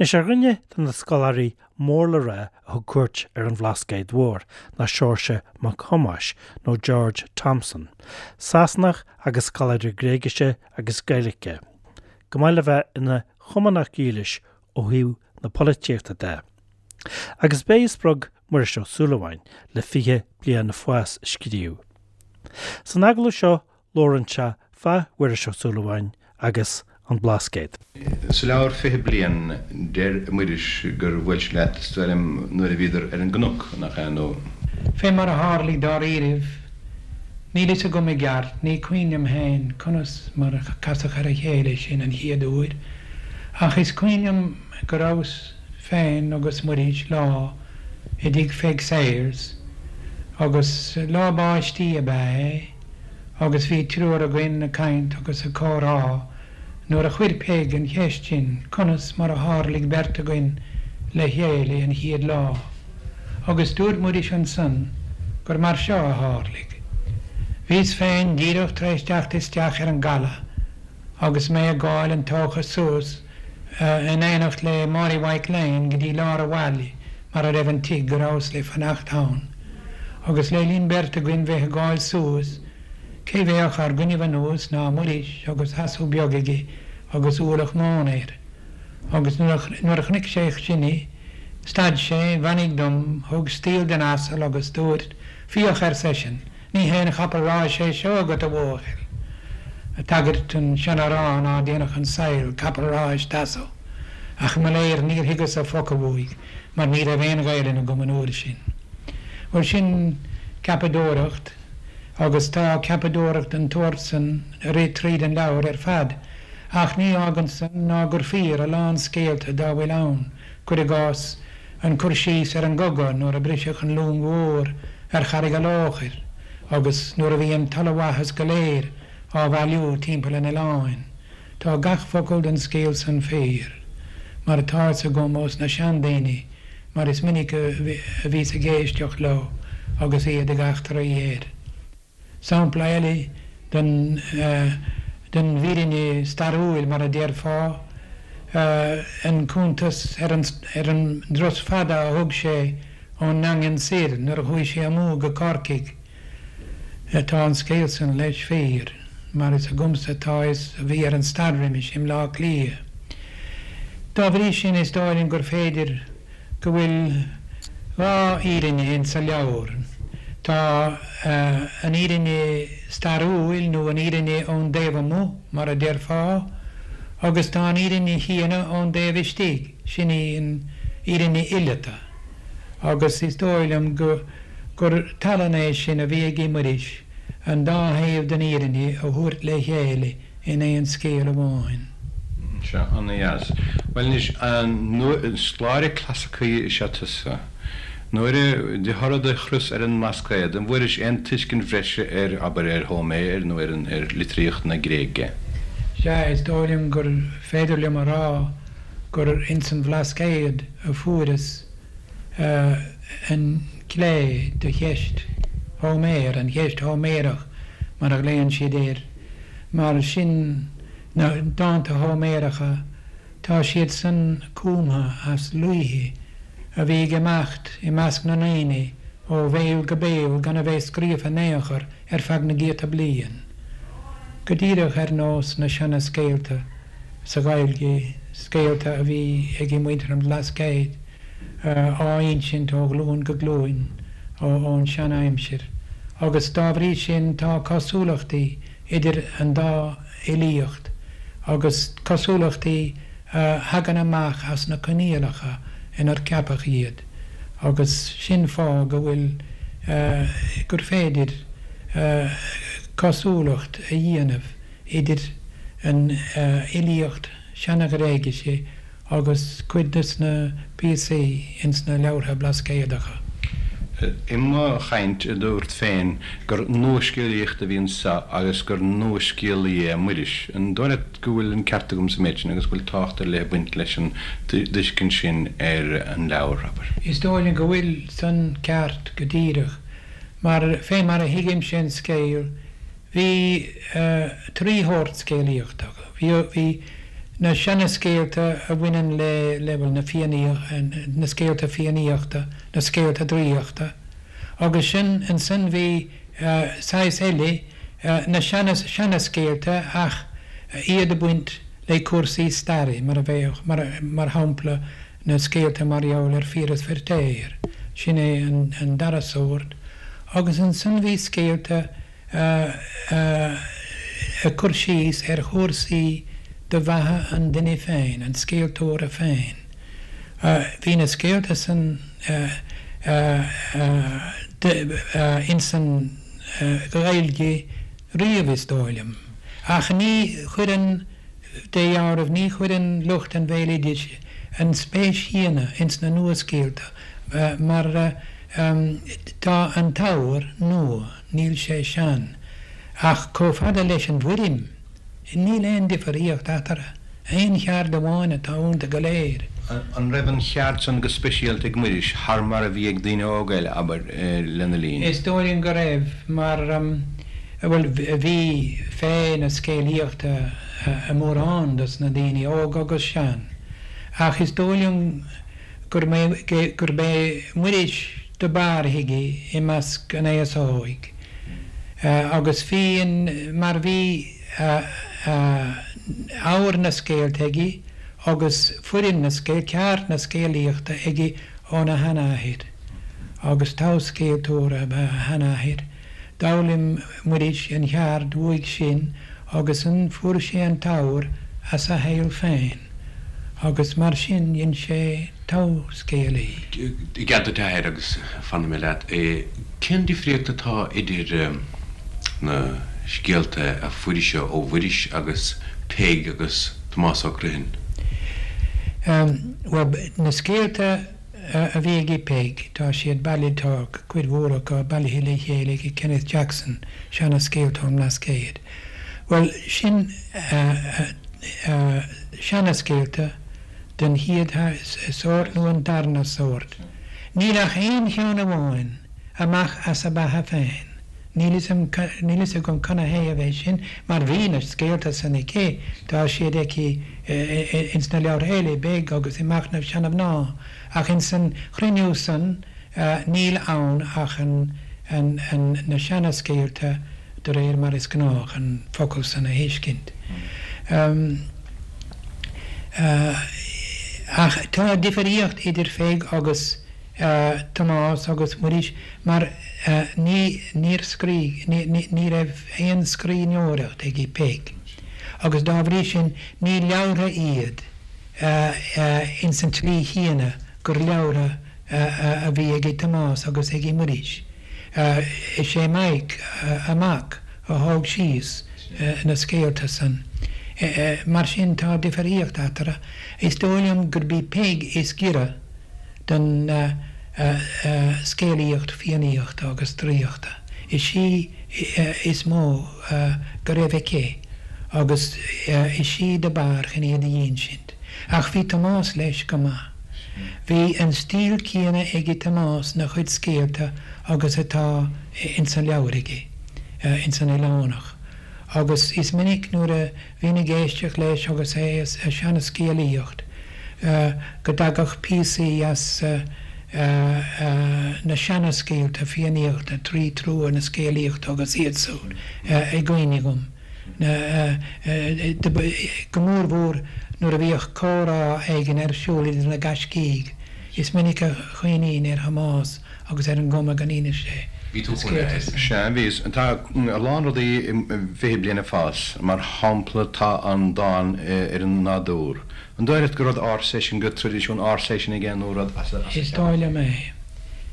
Anois, ar dhuine de na scoláirí mór le rá a thug cuairt ar an Bhlascaod Mhór ná Seoirse Mac Thomáis, nó George Thomson, Sasanach agus scoláire Gréigise agus Gaeilge, chomh maith le bheith ina Chumannach dhílis ó thaobh na polaitíochta de. Agus b'é a spreag Muiris Ó Súilleabháin le Fiche Bliain Fás a scríobh. San agallamh seo Labhrann sé fá Mhuiris Ó Súilleabháin agus an Blascaod. Sa leabhar 20 Bliain, deir Muiris gur bhuail sé leat, is dóigh liom, nuair a bhíodar ar an gcnoc, nach ea, nó. Fé mar a tharlaigh dáiríribh, níl fhios agam i gceart, ní cuimhin liom féin conas mar a casadh ar a chéile sinn an chéad uair, ach is cuimhin liom go rabhas féin agus Muiris lá i dtigh Pheig Sayers, agus lá báistí ab ea é. agus bhí triúr againn ag caint agus ag comhrá nuair a chuir Peig an cheist sin conas mar a tharlaigh beirt againn le chéile an chéad lá, agus dúirt Muiris ansan gur mar seo a tharlaigh. Bhíos féin díreach tar éis teacht isteach ar an gcaladh agus mé ag gabháil an tócha suas in éineacht le Mary Mhaidhc Léan go dtí lár a' bhaile mar a raibh an tigh go rabhas le fanacht ann. Agus le linn beirt againn bheith ag gabháil suas, cé bheadh ár gcoinnibh anuas ná Muiris agus asal beag aige agus ualach móna air. Agus nuair a chonaic sé sinne, stad sé, bheannaigh dom, thug stiall den asal agus dúirt, Féach, ar seisean, ní haon chapall ráis é seo agat, a bhuachaill. Ag tagairt don seanamhrán ná déanfadh an saol capall ráis d'asal. Ach mo léir níor thuigeas-sa focal uaidh mar ní raibh aon Ghaelainn agam an uair sin. Bhuel sin ceapadóireacht agus tá ceapadóireacht den tsórt san ag rith tríd an leabhar ar fad ach ní fhágann san ná gur fíor a lán scéalta dá bhfuil ann, cuir i gcás an cur síos ar an gcogadh nuair a briseadh an long mhór ar Charraig a' Lóchair agus nuair a bhí an t-ollmhaitheas go léir á bhailiú timpeall an oileáin. Tá gach focal den scéal san fíor, mar atá fhios agam ós na seandaoine, mar is minic a bhíos ag éisteacht leo agus iad ag eachtraí air. Sampla eile den den bhfírinne stairiúil, mar a déarfá, an cuntas ar an ar an dturas fada a thug sé ón nDaingean soir nuair a chuaigh sé amú go Corcaigh. Tá an scéal san, leis, fíor, mar is agamsa atá fhios a bhí ar an stair roimis i mBleá Cliath. Dá bhrí sin is dóigh liom gur féidir go bhfuil dha fhírinne ins sa leabhar. Tá an fhírinne stairiúil nó an fhírinne ón dtaobh amuigh, mar a déarfá, agus tá an fhírinne chéanna ón dtaobh istigh, sin í an fhírinne fhileata. Agus is dóigh liom go. gur tallann é sin a bhí ag Muiris an dá thaobh den fhírinne a thabhairt le chéile in aon scéal amháin. Sea, ana-dheas. Bhuel anois, scoláire clasaicí is ea tusa. Nuair a, de thoradh do thuras ar an mBlascaod, an bhfuairis aon tuiscint bhreise ar, abair, ar Hóiméar nó ar an, ar litríocht na Gréige? Sea, is dóigh liom gur féidir liom a rá gur ins an Bhlascaod a fuaireas an clé do cheist Hóiméir, an cheist Hóiméarach mar a ghlaonn siad air, mar sin na dánta Hóiméaracha, tá siad san cumtha as laoithe a bhí ag imeacht i measc na ndaoine ó bhéal go béal gan a bheith scríofa in aon chor ar feadh na gcéadta bliain. Go díreach ar nós na seana-scéalta sa Ghaeilge, scéalta a bhí ag muintir an Bhlascaoid, á insint ó ghlúin go glúin ón sean-aimsir, agus dá bhrí sin tá cosúlachtaí idir an dá fhilíocht, agus cosúlachtaí a thagann amach as na coinníollacha inar ceapadh iad, agus sin fáth go bhfuil, gur féidir cosúlacht a dhéanamh idir an fhilíocht Seana-Ghréigise agus cuid des na píosaí ins na leabhartha Blascaodacha. I mo chaint, dúrt féin gur nuascéalaíocht a bhí anso agus gur nuascéalaí é Muiris. An dóigh leat go bhfuil an ceart agam sa méid sin agus go bhfuil tábhacht ar leith ag baint leis an dtuiscint sin ar an leabhar, abair? Is dóigh liom go bhfuil san ceart go díreach, mar fé mar a thuigimse an scéal, Bhí trí shórt scéalaíochta. Bhí, bhí Na seana-scéalta a bhaineann le, le, bhuel, na Fiannaíocht, na scéalta Fiannaíochta, na scéalta draíochta. Agus sin, ansan bhí saghas eile, na seana, seana-scéalta ach iad ag baint le cúrsaí staire, mar a bheadh, mar, mar shampla, na scéalta mar gheall ar Phiaras Feirtéar, sin é an, an dara sórt. Agus ansan bhí scéalta ag cur síos ar chúrsaí de bheatha an duine féin, an scéaltóra féin. Bhí na scéalta san ins an Ghaeilge riamh is dóigh liom, ach ní chuireann, de dheáramh, ní chuireann lucht an bhéaloidis an spéis chéanna ins na nuascéalta mar tá an t-ábhar nua. Níl sé sean. Ach chomh fada leis an bhfoirm, níl aon difríocht eatarthu. Aon cheard amháin atá iontu go léir. An raibh an cheard san go speisialta ag Muiris thar mar a bhí ag daoine óga eile, abair, lena linn? Is dóigh liom go raibh, mar, bhuel, bhí féith na scéalaíochta i mórán dos na daoine, óg agus sean. Ach is dóigh liom gurb é Muiris do b'fhearr a thuig i measc an aos óig agus bhí an mar bhí ábhar na scéalta aige agus foirm na scéal, ceard na scéalaíochta aige óna sheanathair agus togha-scéaltóir ab ea a sheanathair. D'fhoghlaim Muiris an cheard uaidh sin agus ansan fuair sé an t-ábhar as a shaol féin agus mar sin dhein sé togha-scéalaí. I gcead duit a athair agus fanfaidh mé leat, cén difríocht atá idir na scéalta a fuairis-se ó Mhuiris agus Peig agus Tomás Ó Criomhthain? Bhuel, na scéalta a bhí ag Peig, tá siad bailithe, tá cuid mhór acu bailithe le chéile ag Kenneth Jackson, Seana-Scéalta ón mBlascaod. Bhuel, sin seana-scéalta den chéad sórt nó an darna sórt. Níl ach aon cheann amháin amach as a beatha féin. Níl fhios agam canathaobh é sin, mar bhí na scéalta san aici, tá siad aici ins na leabhartha eile, i bPeig agus i Machnamh Seana-Mhná, ach ins an chruinniú san níl ann ach an, na seana-scéalta de réir mar is gnách an focal san a thuiscint. Ach tá difríocht idir Pheig agus Tomás agus Muiris mar ní, níor scrígh, ní, ní raibh aon scríbhneoireacht ag Peig agus dá bhrí sin ní leabhartha iad ins an tslí chéanna gur leabhartha a bhí ag Tomás agus ag Muiris. Is é Mike, a mac, a thóg síos na scéalta san. Mar sin tá difríocht eatarthu. Is dóigh liom gurb í Peig is giorra don scéalaíocht Fiannaíochta agus draíochta. Is í is mó go raibh aici agus is í do b'fhearr chun iad a dh'insint. Ach bhí Tomás leis go maith. Bhí an stíl céanna ag Tomás 'na chuid scéalta agus atá ins an leabhar aige, ins an Oileánach, agus is minic nuair a bhínn ag éisteacht leis agus é a seanascéalaíocht go dtagadh píosaí as na seanascéalta Fiannaíochta, Trí Trua na Scéalaíochta agus iad súd i gcuimhne dhom, go mórmhór nuair a bhíodh comhrá éigin ar siúl idir na gaiscígh. Is minic a chuimhnínn ar Thomás agus ar an gcuma go n-inis sé Bhí tú chun a. Sea, bhíos. Tá a lán rudaí i bhFiche Bliain ag Fás. Mar shampla, tá an dán ar an nádúr. An dóigh leat gur rud ársa é sin, gur traidisiún ársa é sin aige nó rud as a Is dóigh liom é.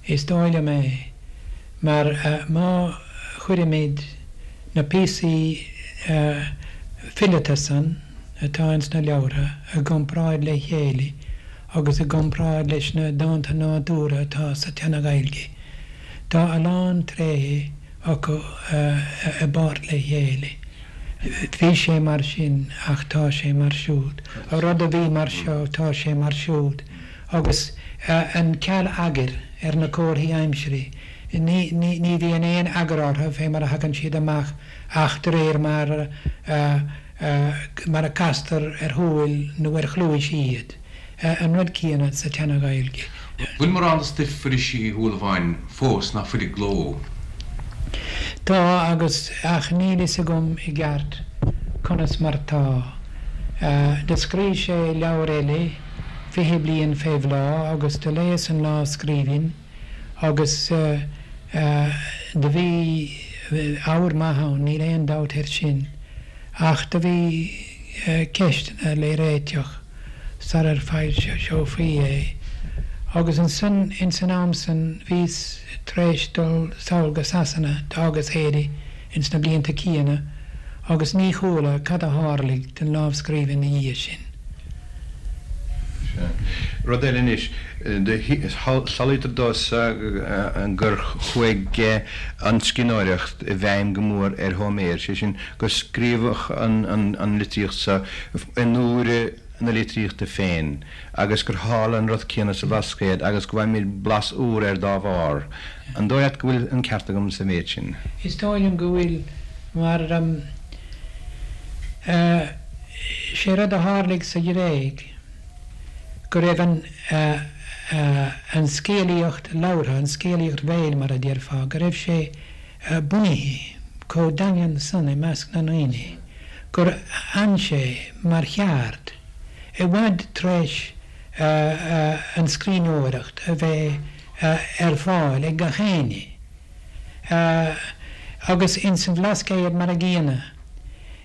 Is dóigh liom é. Mar má chuirimid na píosaí fileata san atá ins na leabhartha i gcomparáid le chéile, agus i gcomparáid leis na dánta nádúrtha atá sa tSeana-Ghaeilge, tá a lán tréithe acu i bpáirt le chéile. Bhí sé mar sin ach tá sé mar siúd. An rud a bhí mar seo, tá sé mar siúd. Agus an ceal eagair ar na comharthaí aimsire, ní bhíonn aon eagar orthu fé mar a thagann siad amach ach de réir mar a. mar a castar ar shúil nó ar chluais iad, an rud céanna sa tSeana-Ghaeilge. Bhfuil mórán de stuif Mhuiris Uí Shúilleabháin fós ná fuil i gcló? Tá, agus, ach níl fhios agam i gceart conas mar tá. Do scríobh sé leabhar eile, 20 Bliain fé Bhláth, agus do léas an lámhscríbhinn agus do bhí abhar maith ann, níl aon dabht air sin, ach do bhí ceisteanna le réiteach sarar foilseofaí é. Agus ansan, ins an am san, bhíos tar éis dul sall go Sasana, d'fhágas Éire ins na blianta céanna, agus ní chuala cad a tharlaigh don lámhscríbhinn 'na dhiaidh sin. Sea. Rud eile anois, samhlaítear domhsa gur chuaigh an scríbhneoireacht i bhfeidhm go mór ar Hóiméar, sé sin, gur scríobhadh an litríocht seo in uair na litríochta féin agus gur tharla an rud céanna sa Bhlascaod agus go bhfaighimid blas úr air dá bharr. An dóigh leat go bhfuil an ceart agam sa mhéid sin? Is dóigh liom go bhfuil, mar sé rud a tharlaigh sa Ghréig go raibh an an scéalaíocht labhartha, an scéalaíocht bhéil mar a déarfá, go raibh sé bunaithe chomh daingean san i measc na ndaoine gur fhan sé mar cheard i bhfad tar éis an scríbhneoireacht a bheith ar fáil ag gach éinne. Agus ins an Bhlascaod mar a gcéanna.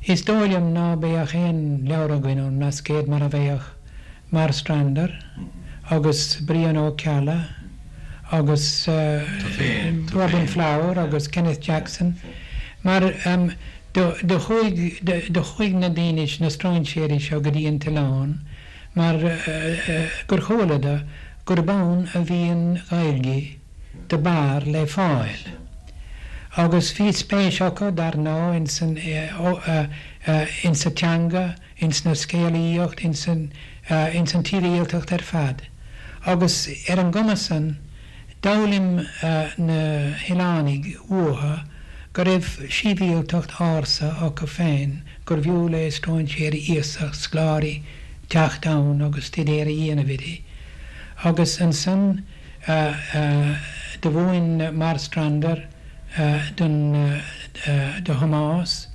Is dóigh liom ná beadh aon leabhar againn ón mBlascaod mara mbeadh Marstrander agus Brian Ó Ceallaigh agus Robin Flower agus Kenneth Jackson mar do chuaigh do chuaigh na daoine na stróinséirí seo go dtí an t-oileán mar gur chualadar gurb ann a bhí an Ghaeilge do b'fhearr le fáil. Agus bhí spéis acu, dar ndóigh, ins an, ins sa teanga, ins na scéalaíocht, ins an, ins an tsibhialtacht ar fad. Agus ar an gcuma san, d'fhoghlaim na hoileánaigh uathu go raibh sibhialtacht ársa acu féin, gurbh fhiú le stróinséirí iasacht, scoláirí, teacht ann agus stuidéar a dhéanamh uirthi. Agus ansan, Do mhúin Marstrander don do Thomás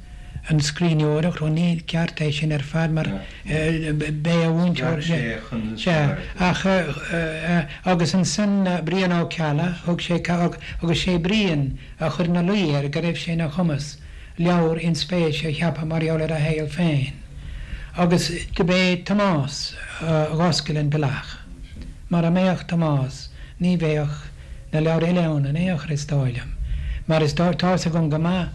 an scríbhneoireacht, ó ní ceart é sin ar fad mar b'é a mhúinteoir, sea, ach agus ansan Brian Ó Ceallaigh, thug sé agus sé Brian a chuir ina luí air go raibh sé ina chumas leabhar inspéise a cheapadh mar gheall ar a shaol féin agus do b'é Tomás a dh'oscail an bealach. Mara mbeadh Tomás ní bheadh na leabhair eile ann in aon chor is dóigh liom. Mar is dóigh, tá's agam go maith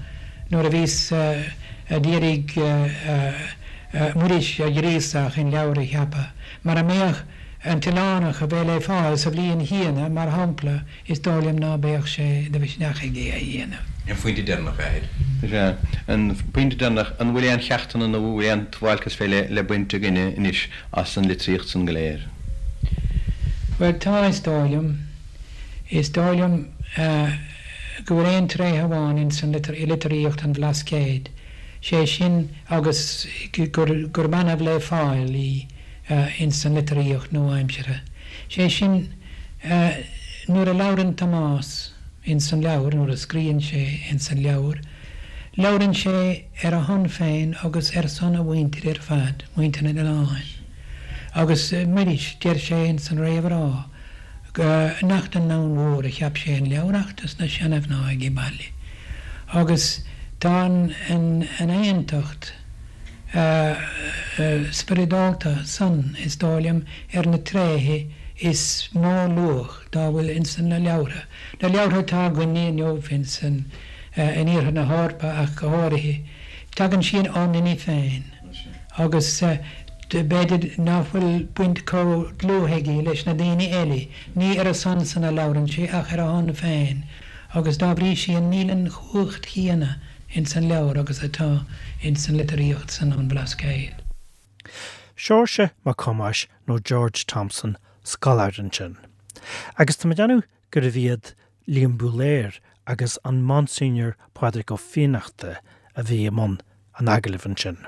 nuair a bhíos a d'iarraidh Muiris a ghríosadh chun leabhar a cheapadh, mara mbeadh An tOileánach a bheith le fáil sa bhliain chéanna, mar shampla, Is dóigh liom ná beadh sé de mhisneach aige é a dhéanamh. An pointe deireanach, a Athair. Sea, an pointe deireanach, an bhfuil aon cheachtanna nó bhfuil aon dualgas fé leith le baint againne anois as an litríocht san go léir? Bhuel, tá, is dóigh liom. Is dóigh liom go bhfuil aon tréith amháin ins an i litríocht an Bhlascaoid, sé sin agus gurb annamh le fáil í ins an litríocht nua-aimseartha, sé sin, Nuair a labhrann Tomás ins an leabhar, nuair a scríonn sé ins an leabhar, labhrann sé ar a shon féin agus ar son a mhuintire ar fad, muintir an oileáin. Agus Muiris, deir sé ins an réamhrá nach don ndomhan mhór a cheap sé an leabhar ach dos na seana-mhná aige baile. Agus tá an aontacht spioradálta san, is dóigh liom, ar na tréithe is mó luach dá bhfuil ins na leabhartha, na leabhartha atá againne inniu ins an, in iarthar na hEorpa ach go háirithe. Tagann siad ón nduine féin agus b'fhéidir ná fuil baint chomh dlúth aige leis na daoine eile, ní ar a son san a labhrann sé ach ar a shon féin agus dá bhrí sin níl an chumhacht chéanna ins an leabhar agus atá ins an litríocht san ón Bhlascaod. Seoirse Mac Thomáis nó George Thompson, scoláire ansin. Agus tá mé ag déanamh gurbh iad Liam Búlaer agus an Monsignor Pádraig Ó Fiannachta a bhí i mbun an agallaimh ansin.